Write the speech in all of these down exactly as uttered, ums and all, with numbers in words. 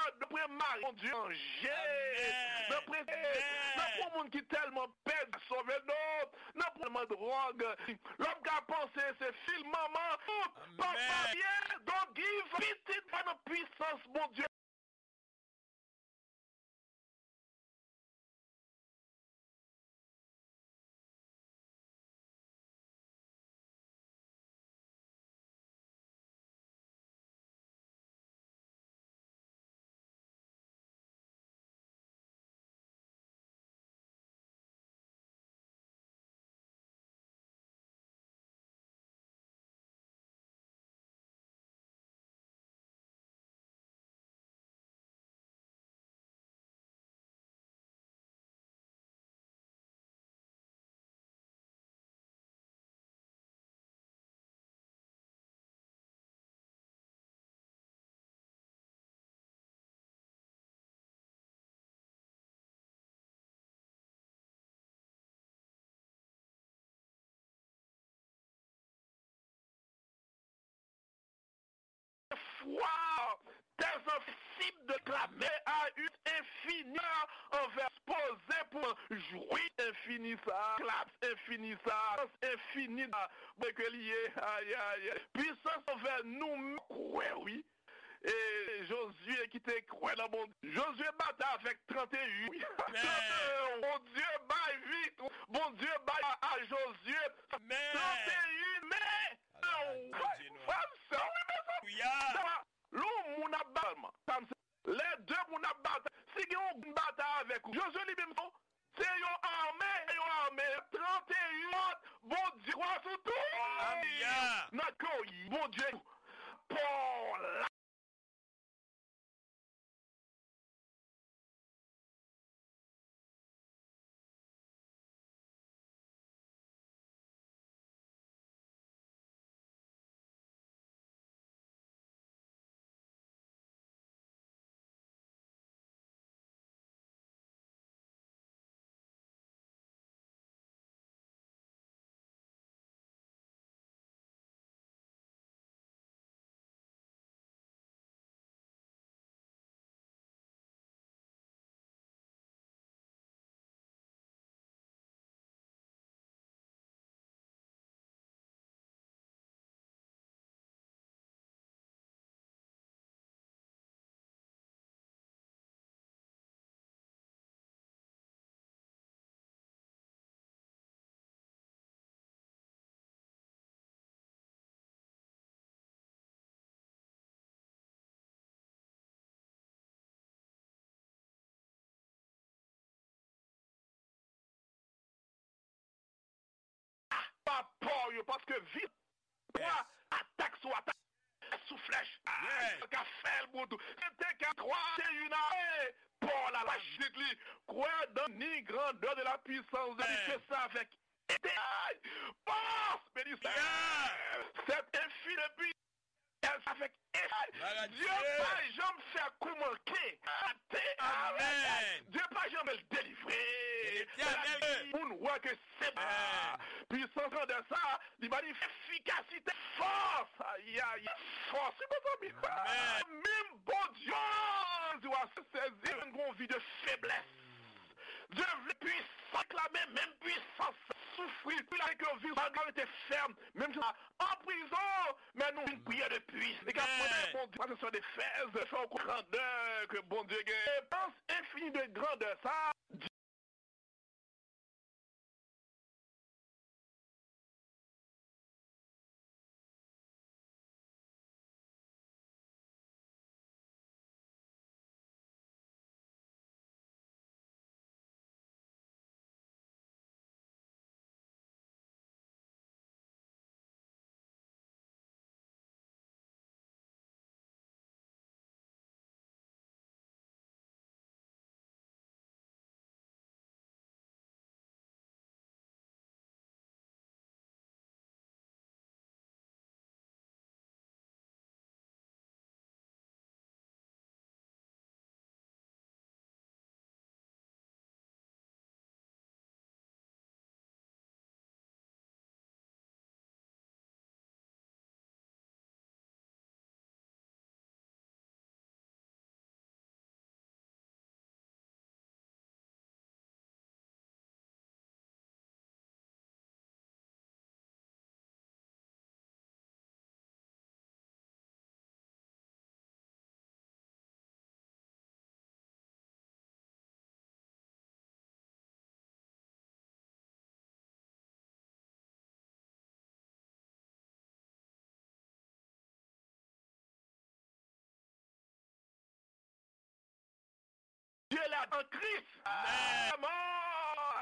Nan pwen mari, Bondye chanje. Nan pwen, nan pwen moun ki tèlman pèdi sove, non. Nan pwen tèlman dwòg. Lòm ka panse se fil manman. Papa ye, don't give. Pitit pa nan pwisans Bondye. Fwa, tèl sansib de klame a u enfini anvè poze pou jwi enfini sa, klas enfini sa, sans enfini sa, bwe ke li ye, ayayay. Pwisans anvè nou menm, kwè wi. E Jozye ki te kwè nan Bondye. Jozye batay avèk trannteyen. Trannteyen. Bondye bay vit. Bondye bay a, a Jozye. Trannteyen. Men, frè m, sè m, wi, mezanmi. Lè yon moun ap batay, lè de moun ap batay, si gen yon moun batay avèk ou, Jozye li menm, Se yon ame, yon ame, trannteyen, Bondye kwa sou tout. Nan kè w, Bondye, Pòl la. Pa pa w yo, paske vi pwa atak sou atak, sou flèch, a, ka fè l bout. Se te ka kwa, se yon a, e, Pòl la, la jit li, kwè dan ni grandè de la pwisans de Dieu sa avèk ete, pòs, beni Senyè, sèt enfini depi Èl sa fèk Dye pa janm fè kou manke. Ate, amèn. Dye pa janm fè l delivre. Moun wè ke se pa pwisans grandè sa, li ba li efikasite, fòs. Ayayay, fòs, wi, mezanmi. Menm Bondye, di w a sezi, yon vi de feblès. Dye vle pwisans, reklame menm pwisans. Soufri, wi, la ke yo viv, malgre yo te fèm, menm jan an prizon, men nou vin priye de pwisans. E k ap mande Bondye, pa se sou Efèz, fè w konn grandè ke Bondye gen. Epans enfini de grandè sa, an Kris. Amèn.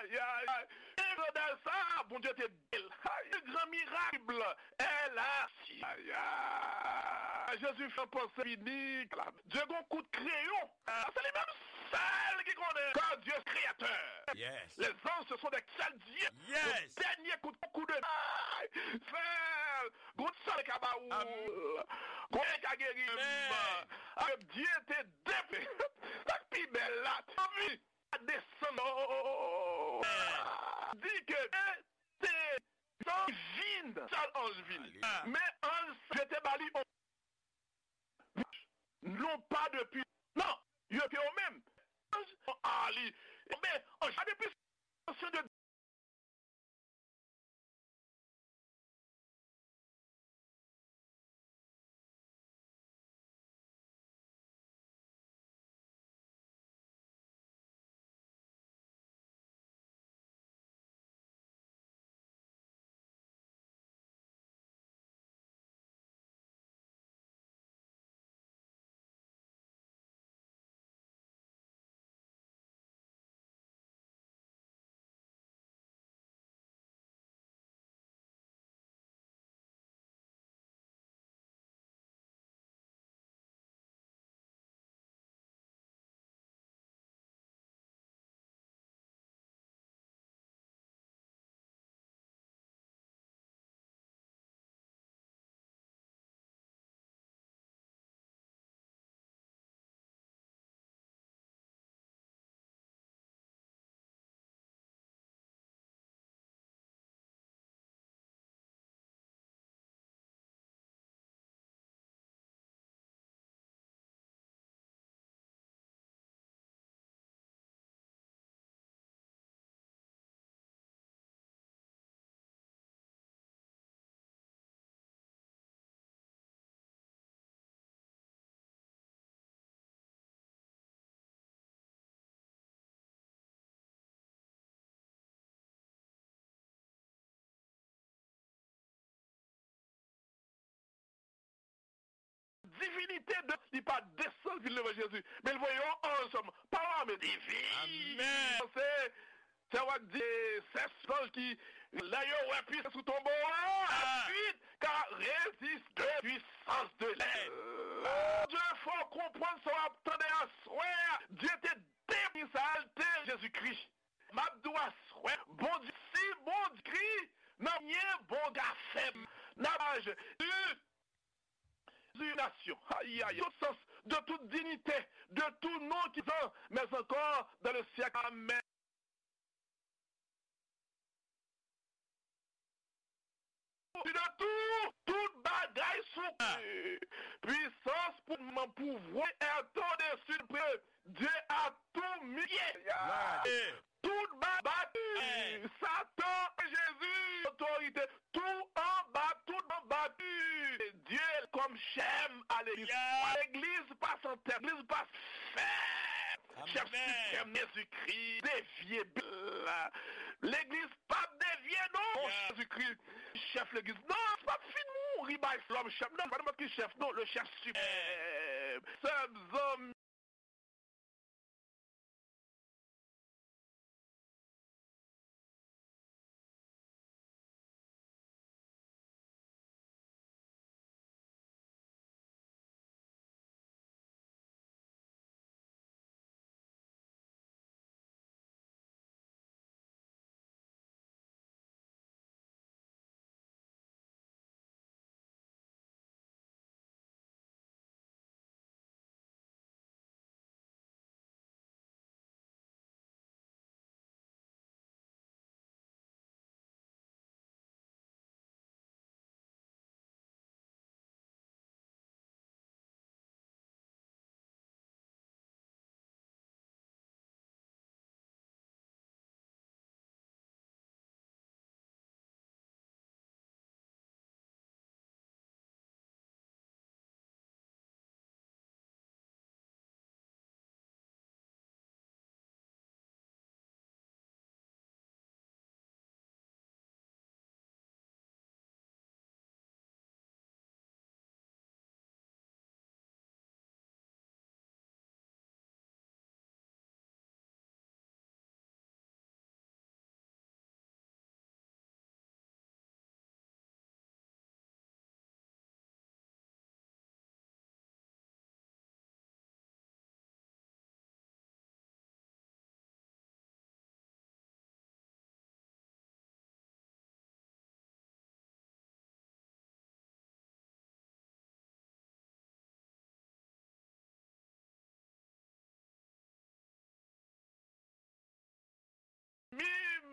Ay, ay, ay. E jòdèl sa, Bondye te di l. Ay, gran mirak, Bib la. Èlas. Ay, ay. Jezi fè panse fini. Dye gon kout kreyon. Se li menm sèl ki konnen. Car Dieu créateur. Yes. Les anges, ce sont des seuls dieux. Yes. Le dernier coup, coup de. Ay, frè, gon sèl ka ba ou. Amen. Gon ka geri. Amen. Avèk Dye te depe. Sa k pi bèl la. Anvi. Desann. Di ke te anj vin, sèl anj vin. Alelouya. Men anj sa, Dye te ba li on non pa depi, non, yo te yo menm. Anj, a li, men anj pa depi Divinite de li pa desann vin devan Jezi, men l voye yon anj sèlman. Pawòl a men divin. Amèn. Se, se w ap di, se zanj ki, lè yo wè pwisans sou tonbo a, ensuite, ka reziste puissance de l'ennemi. Bondye fè w konprann sa w ap tande aswè a. Dye te depi sa l te Jezikri. M ap di w aswè, Bondye, si Bondye kri, nan mwen Bondye a fè m. N ap aje. Nasyon. Ayi, ayi. Tout sens, de toute dignité, de tout nom qui sont, mais encore dans le siècle. Amen. De tout, tout bagay sou pwisans pou mwen pouvwa est au-dessus de Dieu à tout milieu. Tout ba bati. Satan, Jezi, otorite, tout anba, tout anba Dye kòm chèf a legliz. Legliz pa san tèt, legliz pa fè. Chèf siprèm Jezikri, devye Bib la. Legliz p ap devye non. Jezikri, chèf legliz. Non, l p ap fin mouri bay lòm chèf. Non, pa nenpòt ki chèf, non, le chèf siprèm. Sè m, zanmi.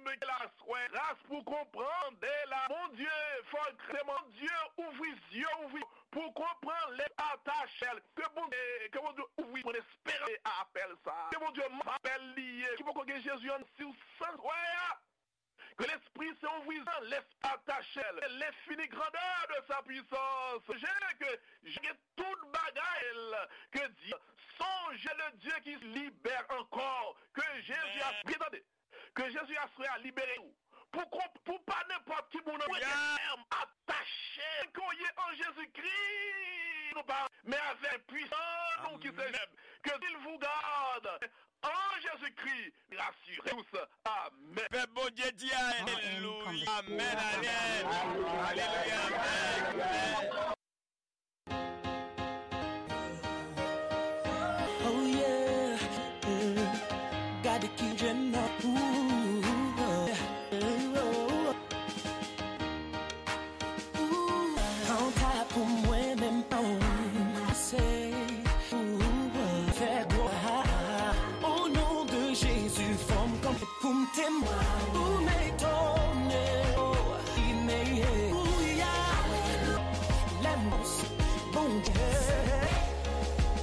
Bib ke la swè gras pou konprann de la. Bondye, fò ke Bondye ouvri zye, ouvri pou konprann lèspri atachè. Ke Bondye, ke Bondye ouvri mwen esperans apèl sa. Ke Bondye apèl li ye, ki poko gen Jezi an si w san wè a. Ke lespri se ouvri zye, lèspri atachè. L'infini grandeur de sa puissance. Je ke je gen tout bagay ke Dieu. Sonje le Dieu qui libère encore. Que Jésus a bien tande. Ke Jezi aswè a libere w. Pou, pou pa nenpòt ki moun nan mete fèm, atache, ke w ye an Jezikri. Nou pa, men avèk pwisan nou ki se Jezi. Ke s'il vous garde en Jésus-Christ, rassurez tous. Amen. Pèp Bondye di alelouya. Amen, amen. Alelouya, amen, amen. Oh yeah, yeah. Gade ki djèm nan. Ooh, oh, oh. Ooh, kanta pou mwen menm pa w pase. Ooh, oh. Fè glwa. O non de Jezi, fò m kanpe pou m temwen. Ou m etone, oh, li meye. Ouya, lè m panse Bondye,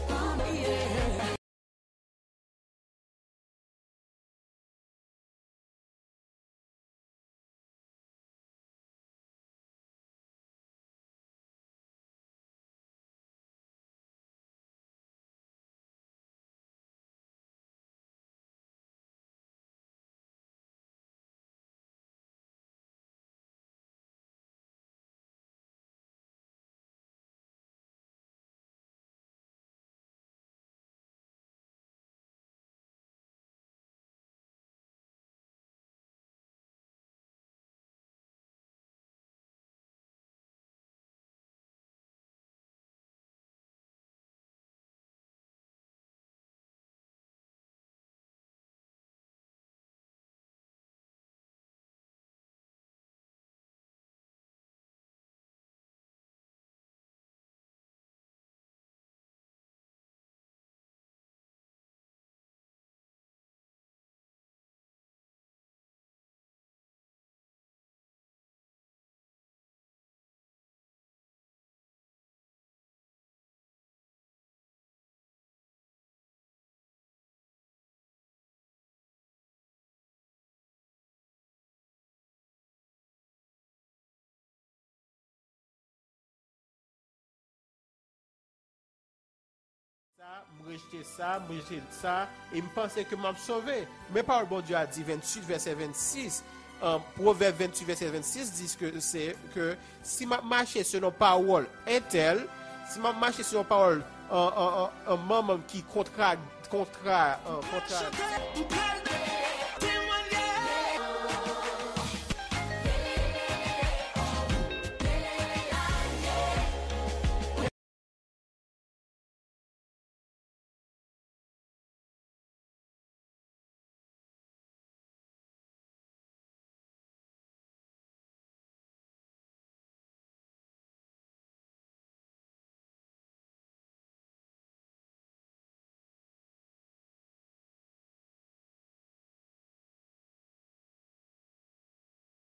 ou meye. Sa, m rejte sa, m rejte sa, e m panse ke m ap sove. Men pawòl Bondye a di, venntuit, vèsè vennsis, an, Pwovèb venntuit, vèsè vennsis di ke se, ke si m ap mache selon pawòl entèl, si m ap mache selon pawòl an, an, an, an manman ki kontra, kontra, an, kontra.